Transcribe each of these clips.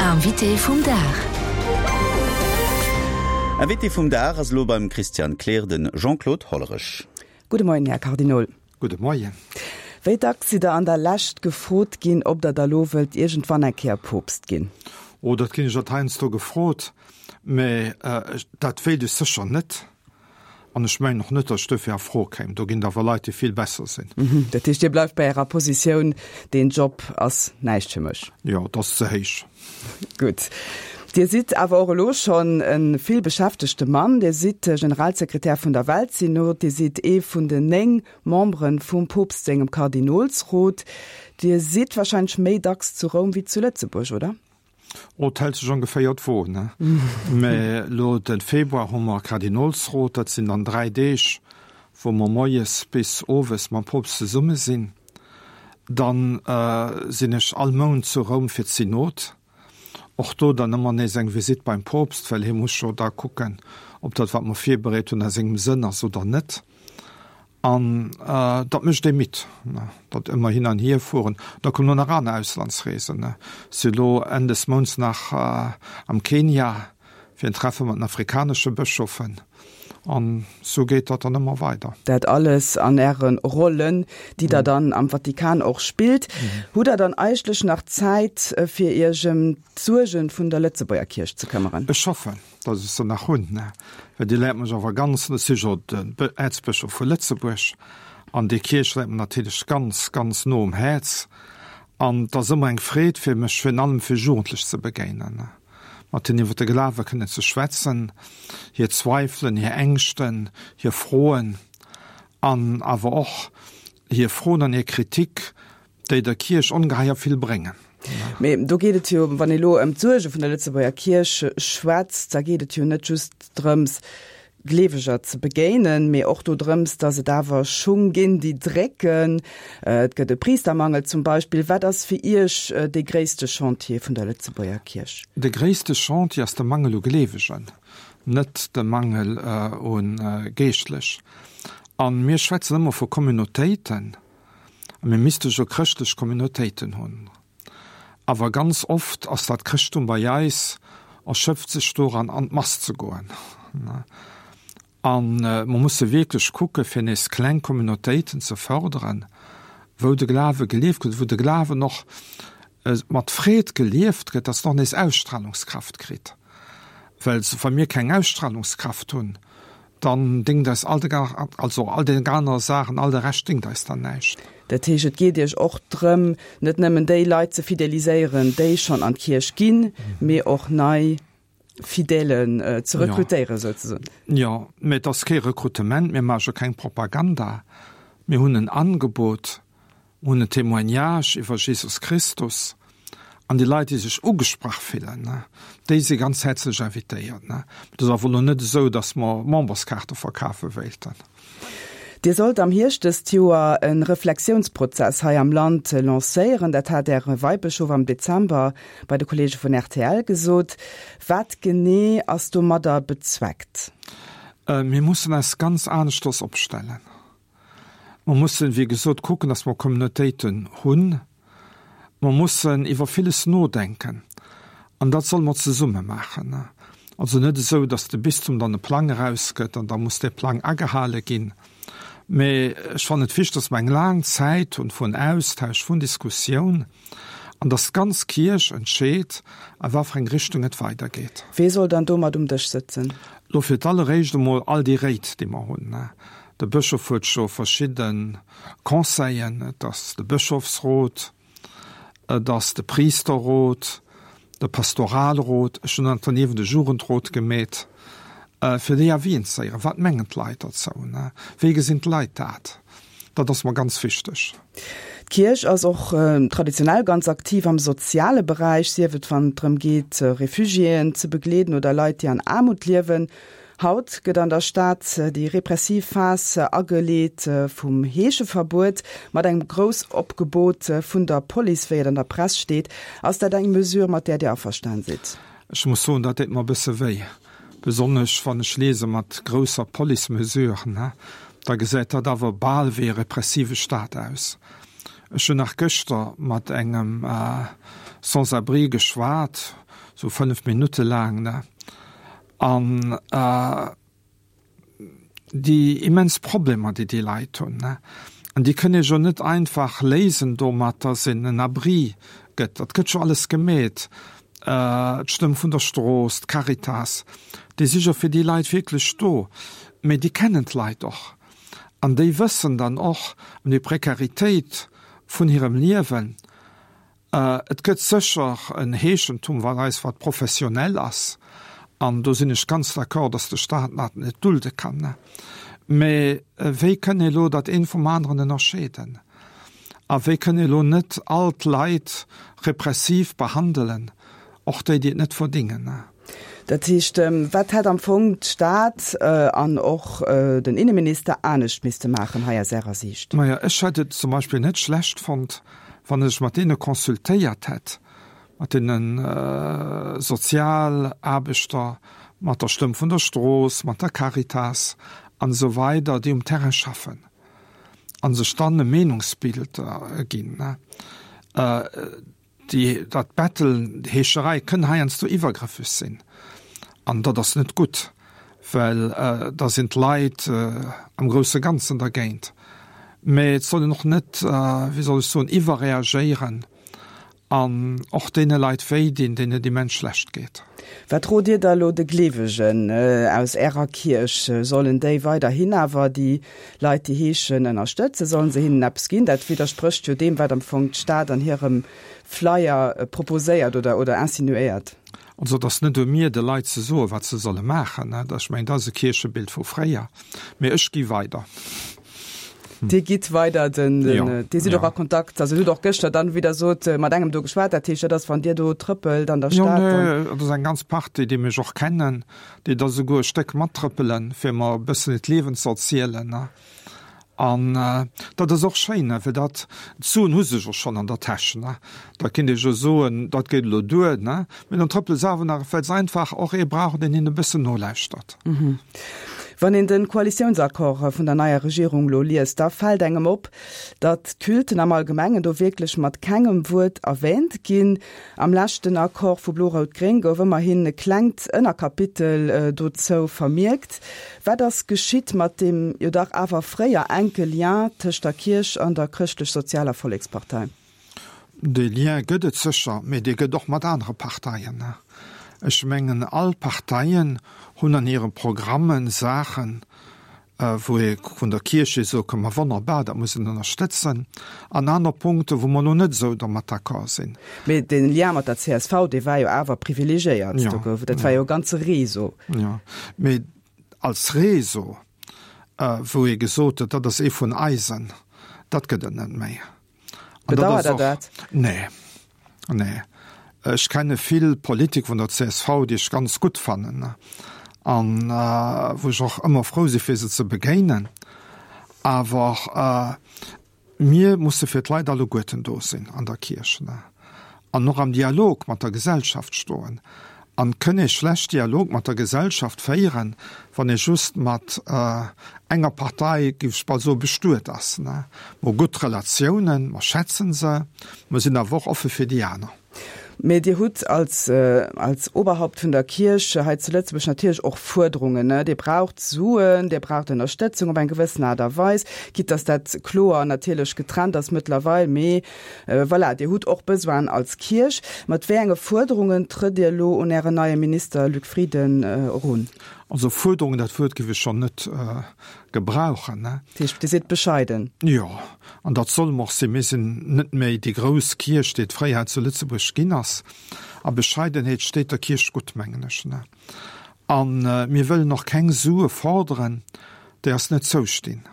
Invité vum Dag. Invité vum Dag ass elo beim Christian Kleer de Jean-Claude Hollerech. Gudde Moien, Här Kardinol. Gudde Moien. Wéi dacks sidd Der an der Lescht gefrot ginn, ob Der da lo wëllt iergendwann eng Kéier Poopst ginn? Oh, dat ginn ech alt heiansdo gefrot, mä dat wéilt ech sécher net. An ech mengen och net, datt ech duerfir a Fro kéim. Do ginn et awer Leit, déi vill besser sinn. Dat heescht, Dir bleift bei Ärer Positioun, deen Job ass näischt fir mech? Jo, et ass ze héich. Gutt. Dir sidd awer och elo schonn e vill beschäftegte Mann. Dir sidd Generalsekretär vun der Weltsynod, Dir sidd ee vun den 9 Membere vum Poopst sengem Kardinolsrot. Dir sidd warscheinlech méi dacks zu Roum wéi zu Lëtzebuerg, oder? Oh, et hält sech ongeféier d'Wo, ne? Mä elo de Februar hu mer Kardinolsrot, dat sinn dann 3 Deeg, wou mer moies bis owes mam Poopst zesumme sinn. Dann sinn ech all Mount zu Roum fir d'Synod. Och do dann ëmmer nees eng Visitt beim Poopst, well hie muss jo da kucken, ob dat, wat mer virbereet hunn, a sengem Sënn ass oder net. An dat mécht ee midd, dat ëmmer hin an hier fueren. Da kommen och nach aner Auslandsreesen. Ech si elo Enn des Mounts nach am Kenia fir en Treffe mat den afrikanesche Bëschofen. An esou geet dat dann ëmmer weider. Dat alles an Äre Rollen, déi Der dann am Vatikan och spillt. Hutt Der dann eigentlech nach Zäit, fir Iech ëm d'Suerge vun der Lëtzebuerger Kierch ze këmmeren? Ech hoffen. Datt ech se nach hunn, well déi läit mech awer ganz, ech si jo den Äerzbëschof vu Lëtzebuerg, an déi Kierch läit mer natierlech ganz, ganz no um Häerz. An et ass ëmmer eng Freed fir mech, virun allem fir Jugendlech ze begéinen, mat hinnen iwwer de Glawe kënnen ze schwätzen, hir Zweifelen, hir Ängschten, hir Froen an awer och hir Froen an hir Kritik, déi der Kierch ongeheier vill bréngen. Mee do geet et jo, wann ee lo ëm d'Suerge vun der Lëtzebuerger Kierch schwätzt, da geet et jo net just drëms, Gleeweger ze begéinen, mee och dodrëms, datt et awer Schung ginn, déi drécken. Et gëtt e Priistermangel zum Beispill. Wat ass fir Iech dee gréisste Chantier vun der Lëtzebuerger Kierch? De gréisste Chantier ass de Mangel u Gleewegen, net de Mangel u Geeschtlech. A mir schwätzen ëmmer vu Communautéiten. A mir misste jo chrëschtlech Communautéiten hunn. Awer ganz oft ass dat Chrëschttum bei eis, erschöpft sech doran, an d'Mass ze goen. A mer musse wierklech kucke fir nees kleng Communautéiten ze fërderen, wou de Glawe gelieft gëtt, wou de Glawen och mat Freed gelieft gëtt, dass en och nees Ausstrahlungskraft kritt. Well wa mir keng Ausstrahlungskraft hunn, Dann déngt eis all de, also all déi aner Saachen, all de Rescht déngt eis dann näischt. Dat heescht, et geet Iech och drëm, net nëmmen déi Leit ze fideliséieren, déi schonn an d'Kierch ginn, mee och nei Fidèlen ze rekrutéieren, souzesoen. Jo, mee et ass kee Rekrutement, mir maache keng Propaganda, mir hunn en Angebot. Hunn en Témoignage iwwer Jesus Christus an déi Leit, déi sech ugesprach fillen, déi si ganz häerzlech invitéiert. Et ass awer elo net esou, datt mer Memberskaarte verkafe wéilten. Dir sollt am Hierscht dëst Joer e Reflexiounsprozess hei am Land lancéieren. Dat hat Äre Weibëschof am Dezember bei de Kolleege vun rtl gesot. Wat genee ass domadder bezweckt? Mir mussen eis ganz aneschters opstellen. Mer mussen, wéi gesot, kucken, dass mer Communautéiten hunn. Mer mussen iwwer villes nodenken an dat solle mer zesumme maachen. Also net esou, dass de Bistum dann e Plang erausgëtt an da muss dee Plang agehale ginn. Mee ech fannen et wichteg, dass mer eng laang Zäit hunn vun Austausch, vun Diskussioun an dass d'ganz Kierch entscheet, a wat fir eng Richtung et weidergeet. Wee soll dann do mat um Dësch sëtzen? Elo fir d'alleréischt emol all déi Réit, déi mer hunn. De Bëschof huet scho verschidde Conseillen, et ass de Bëschofsrot, et ass de Priisterrot, de Pastoralrot, ech hunn nach derniewent e Jugendrot gemeet, fir déi Avisen ze héieren. Wat mengen d'Leit derzou? Wéi gesinn d'Leit dat? Dat ass mer ganz wichteg. D'Kierch ass och traditionell ganz aktiv am soziale Beräich, sief et wann et drëm geet, Refugiéen ze begleeden oder Leit, déi an Aarmut liewen. Haut gëtt an der Stad déi repressiv Phas ageleet vum Heescheverbuet mat engem Groussopgebot vun der Police, wéi et an der Press steet. Ass dat eng Mesure, mat där Dir averstan sidd? Ech muss soen, dat deet mer e bësse wéi, besonnesch wann ech liese mat grousser Police-Mesure, da gesäit dat awer bal wéi e repressive Staat aus. Ech hunn nach gëschter mat engem. Sans-abrie geschwat, sou 5 Minutte laang, ne, an déi immens Problemer, déi déi Leit hunn, ne, an déi kënn ee jo net einfach léisen domat, dass een en Abri gëtt. Dat gëtt jo alles gemeet, d'Stëmm vun der Strooss, d'Caritas, déi si jo fir déi Leit wierklech do, mee déi kennen d'Leit och an déi wëssen dann och ëm déi Prekaritéit vun hirem Liewen. Et gëtt sécher en Heeschentum, wat eis, wat professionell ass, an do sinn ech ganz d'accord, datt de Stat dat net dulde kann. Mä wéi kënn ee elo dat eent vum aneren ënnerscheeden? A wéi kënn ee elo net all d'Leit repressiv behandelen, och déi, déi et net verdingen? Dat heescht, wat hätt am Fong d'Stad an och den Inneminister anescht misste maachen hei aus Ärer Siicht? Maja, ech hätt et zum Beispill net schlecht fonnt, wann ech mat deene consultéiert hätt, mat deene Sozialaarbechter, mat der Stëmm vun der Strooss, mat der Caritas an esou weider, déi um Terrain schaffen a sech dann e Meenungsbild ginn. Déi, dat Bettelen, déi Heescherei kënn heiansdo iwwergrëffeg sinn an dat ass net gutt, well da sinn d'Leit am grousse Ganzen dergéint. Mä et soll een och net, wéi soll ech soen, iwwerreagéieren an och deene Leit wéi dinn, deenen et immens schlecht geet. Wat rot Dir da elo de Gleewegen aus Ärer Kierch? Sollen déi weiderhin awer déi Leit, déi heeschen, ënnerstëtzen? Sollen se hinnen eppes ginn? Dat widdersprécht jo deem, wat am Fong d'Stad an hirem Flyer proposéiert oder, oder insinuéiert. Also et ass net u mir, de Leit ze soen, wat se solle maachen. Ech mengen, dat ass e Kierchebild vu fréier. Mee ech gi weider. Dir gitt weider, den, den, Dir sidd och a Kontakt, also hutt och gëschter dann, wéi Der sot, mat engem do geschwat. Dat heescht, dat ass, wann Dir do trëppelt an der Stad, dann. Jo, nee, dat ass eng ganz Partie, déi mech och kennen, déi da souguer e Stéck mattrëppelen, fir mer e bëssen hiert Liewen ze erzielen. An dat ass och schéin, well dat, d'Suen hu se jo schonn an der Täsch. Da kinnt ee jo soen, dat geet elo duer, mee dann trëppele se awer nach, well se einfach och ee brauchen, deen hinnen e bëssen nolauschtert. Wann een de Koalitiounsaccord vun der neier Regierung elo liest, da fält engem op, datt d'Culten am Allgemengen do wierklech mat kengem Wuert erwähnt ginn. Am leschten Accord vu Blo-Rout-Gréng gouf ëmmerhin e klengt Ënnerkapitel dozou vermierkt. Wat ass geschitt mat deem jo dach awer fréier enke Lien tëscht der Kierch an der Chrëschtlech-Sozialer Vollekspartei? Dee Lien gëtt et sécher, mee dee gëtt och mat anere Parteien. Ech mengen, all Parteien hunn an hire Programme Saachen, wou ee vun der Kierch hier soe kann, ma wonnerbar, dat muss een ënnerstëtzen, an aner Punkte wou mer elo net esou dermat d'accord sinn. Mee de Lien mat der csv, dee war jo awer privilegiéiert, do gouf et, dat war jo e ganze Réseau. Jo, mee als Réseau, wou ee gesot huet, dat ass ee vun eisen, dat gëtt et net méi. Bedauert Der dat? Nee, nee. Ech kenne vill Politiker vun der csv, déi ech ganz gutt fannen an wou ech och ëmmer frou si fir se ze begéinen. Awer mir musse fir d'Leit alleguerten do sinn an der Kierch an och am Dialog mat der Gesellschaft stoen. An kënn ee schlecht Dialog mat der Gesellschaft féieren, wann ee just mat enger Partei, géif ech bal soen, bestuet ass. Mer hu gutt Relatiounen, mer schätzen se, mer sinn awer och offe fir déi aner. Mee Dir hutt als, als Oberhaupt vun der Kierch hei zu Lëtzebuerg natierlech och Fuerderungen. Dir braucht Suen, Dir braucht Ënnerstëtzung op eng gewëssen Aart a Weis, quitte dass dat kloer natierlech getrennt ass mëttlerweil. Mee Voilà, Dir hutt och Besoinen als Kierch. Mat wéi enge Fuerderungen trëtt Dir elo un Ären neie Minister Luc Frieden erun? Also Fuerderungen, dat Wuert géif ech schonn net gebrauchen. Dat heescht, Dir sidd bescheiden? Jo, an dat solle mer och sinn. Mir sinn net méi déi grouss Kierch, déi et fréier hei zu Lëtzebuerg ginn ass. A Bescheidenheet steet der Kierch gutt, mengen ech. A mir wëllen och keng Sue forderen, déi eis net zoustinn.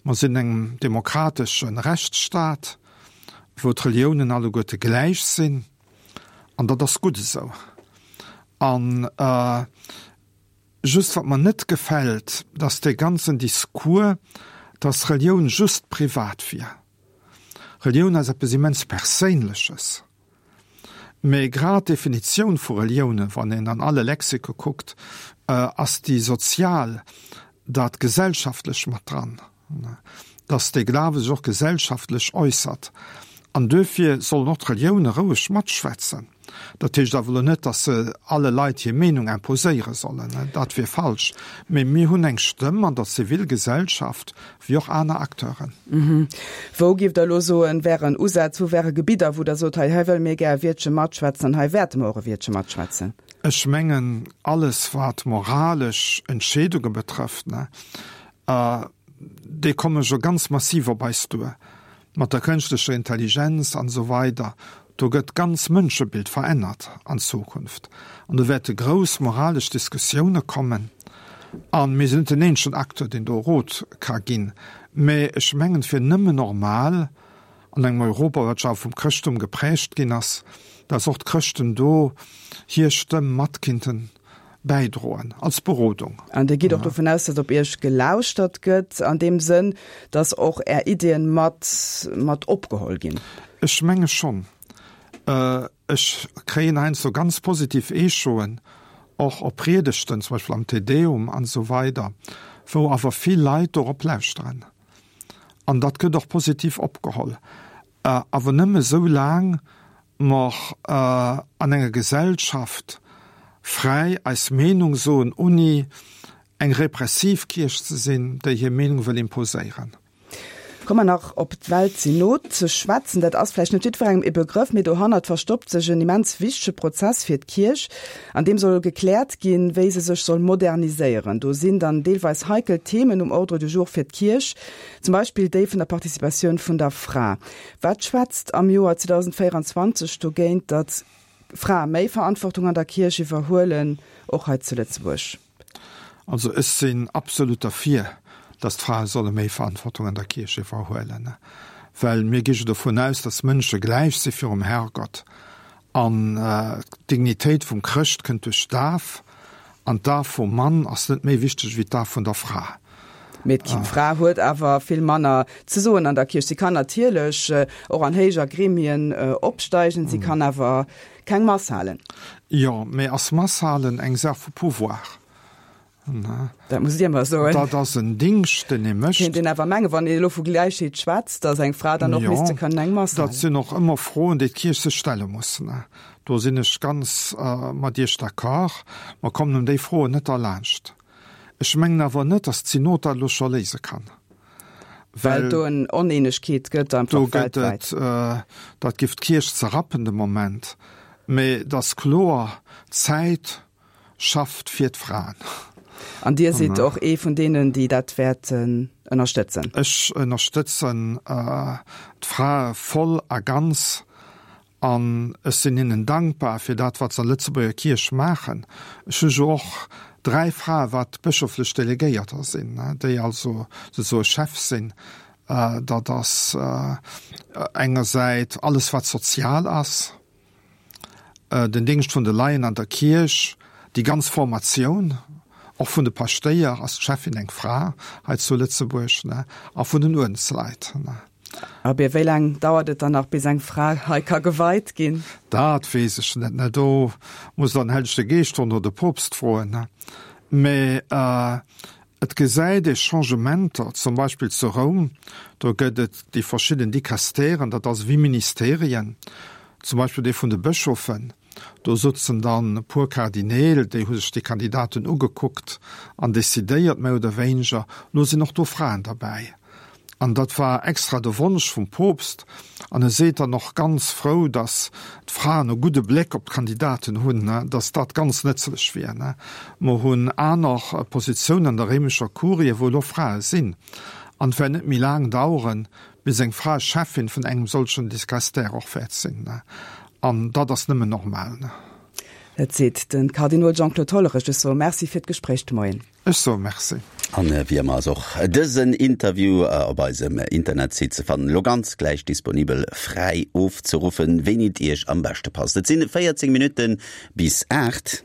Mer sinn engem demokratesche Rechtsstaat, wou d'Reliounen alleguerte gläich sinn, an dat ass gutt esou. An just wat mer net gefält, dass dee ganzen Discours, dass Relioun just privat wier. Relioun ass eppes immens Perséinleches. Mee grad d'Definitioun vu Reliounen, wann een an alle Lexike kuckt, ass déi sozial, dat Gesellschaftlech mat dran, dass dee Glawe sech och gesellschaftlech äussert. An duerfir sollen och d'Relioune roueg matschwätzen. Dat heescht awer elo net, datt se alle Leit hir Meenung imposéiere sollen, dat wier falsch. Mee mir hunn eng Stëmm an der Zivilgesellschaft, wéi och aner Acteuren. Wou, giff Der elo soen, wären Usätz, wou wäre Gebidder, wou Der sot, hei, hei wëlle mir gär e Wiertche matschwätzen an hei wäerte mer och e Wiertche matschwätzen? Ech mengen, alles wat moralesch Entscheedunge betrëfft, déi komme jo ganz massiv op eis duer, mat der kënschtlecher Intelligenz an esou weider. Do gëtt d'ganz Mënschebild verännert an Zukunft an do wäerte grouss moralesch Diskussioune kommen. A mir sinn net den eenzegen Acteur, deen do Rot ka ginn, mä ech mengen, et wier nëmmen normal an engem Europa, wat jo awer vum Chrëschtum geprägt ginn ass, datt och d'Chrëschten do hir Stëmm mat kinnten bäidroen als Berodung. An Dir gitt och dovun aus, datt op Iech gelauschtert gëtt, an deem Sënn, datt och Är Iddien mat mat opgeholl ginn? Ech menge schonn. Ech kréien heiansdo ganz positiv Echoen, och op Priedegten, zum Beispill am Te Deum an esou weider, wou awer vill Leit dorop lauschteren. An dat gëtt och positiv opgeholl. Awer nëmme sou laang mer an enger Gesellschaft fräi eis Meenung soen, ouni eng repressiv Kierch ze sinn, déi hir Meenung wëll imposéieren. Komme mer nach op d'Weltsynod ze schwätzen. Dat ass vläicht net jiddwerengem e Begrëff, mee dohannert verstoppt sech en immens wichtege Prozess fir d'Kierch, an deem soll gekläert ginn, wéi se sech soll moderniséieren. Do sinn dann deelweis heikel Themen um Ordre du jour fir d'Kierch, zum Beispill déi vun der Participatioun vun der Fra. Wat schwätzt am Joer 2024 dogéint, datt Frae méi Verantwortung an der Kierch iwwerhuelen, och hei zu Lëtzebuerg? Also ech sinn absolut derfir, datt d'Frae solle méi Verantwortung an der Kierch iwwerhuelen, well mir gi jo dovun aus, datt Mënsche gläich si virum Herrgott an d'Dignitéit vum Chrëscht kënnt duerch d'Daf an d'Daf vum Mann ass net méi wichteg wéi d'Daf vun der Fra. Mee d'Fra huet awer vill manner ze soen an der Kierch. Si kann natierlech och an héijer Gremien opsteigen, si kann awer keng Mass halen. Jo, mee ass Mass halen eng Saach vu Pouvoir? Dat musst Dir mer soen. Dat ass en Dingscht, deen ee mécht. Kéint een awer mengen, wann een elo vu Gläichheet schwätzt, datt eng Fra dann och misste kënnen eng Mass halen. Dat sinn och ëmmer Froen, déi d'Kierch sech stelle muss. Do sinn ech ganz mat Iech d'accord. Mer kommen ëm déi Froen net derlaanscht. Ech mengen awer net, datt d'Synod dat elo scho léise kann. Well et do en Oneenegkeet gëtt einfach do gëtt et, dat giff d'Kierch zerrappen de Moment. Mee et ass kloer, d'Zäit schafft fir d'Fraen. An Dir sidd och ee vun deenen, déi dat wäerten ënnerstëtzen? Ech ënnerstëtzen d'Frae voll a ganz. An ech sinn hinnen dankbar fir dat, wat se an Lëtzebuerger Kierch maachen. Ech hu jo och dräi Frae wat bëschoflech Delegéierter sinn, déi also souzesoe Chef sinn. Dat ass engersäit alles wat sozial ass, den Déngscht vun de Laien an der Kierch, déi ganz Formatioun och vun de Paschtéier, ass d'Cheffin eng Fra hei zu Lëtzebuerg, a vun den Uerdensleit. Abee, wéi laang dauert et dann nach, bis eng Fra hei ka geweit ginn? Dat weess ech net, ne. Do muss der den Hellege Geescht froen oder de Poopst froen, ne. Mä et gesäit ee Changementer, zum Beispill zu Roum, do gëtt et déi verschidden Dicastèren, dat ass ewéi Ministerien, zum Beispill dee vun de Bëschofen. Do sutzen dann e puer Kardineel, déi hu sech déi Kandidaten ugekuckt an decidéiert, méi oder wéineger. Lo sinn och do Fraen derbäi. An dat war extra de Wonsch vum Poopst. An e seet dann och ganz frou, datt d'Fraen e gudde Bléck op d'Kandidaten hunn, datt dat ganz nëtzlech wier. Mer hunn aner Positiounen an der réimescher Kurie, wou elo Frae sinn. An et wäert net méi laang daueren, bis eng Fra Cheffin vun engem solchen Dicastère och wäert sinn. An dat ass nëmmen normal. Dat seet de Kardinol Jean-Claude Hollerich. Ech soe Merci fir d'Gespréich de Moien. Ech soe Merci. An wéi ëmmer ass och dësen Interview op eisem Internetsite ze fannen, elo ganz gläich disponibel, fräi ofzeruffen, wéini et Iech am beschte passt. Et sinn 14 Minutte bis 8.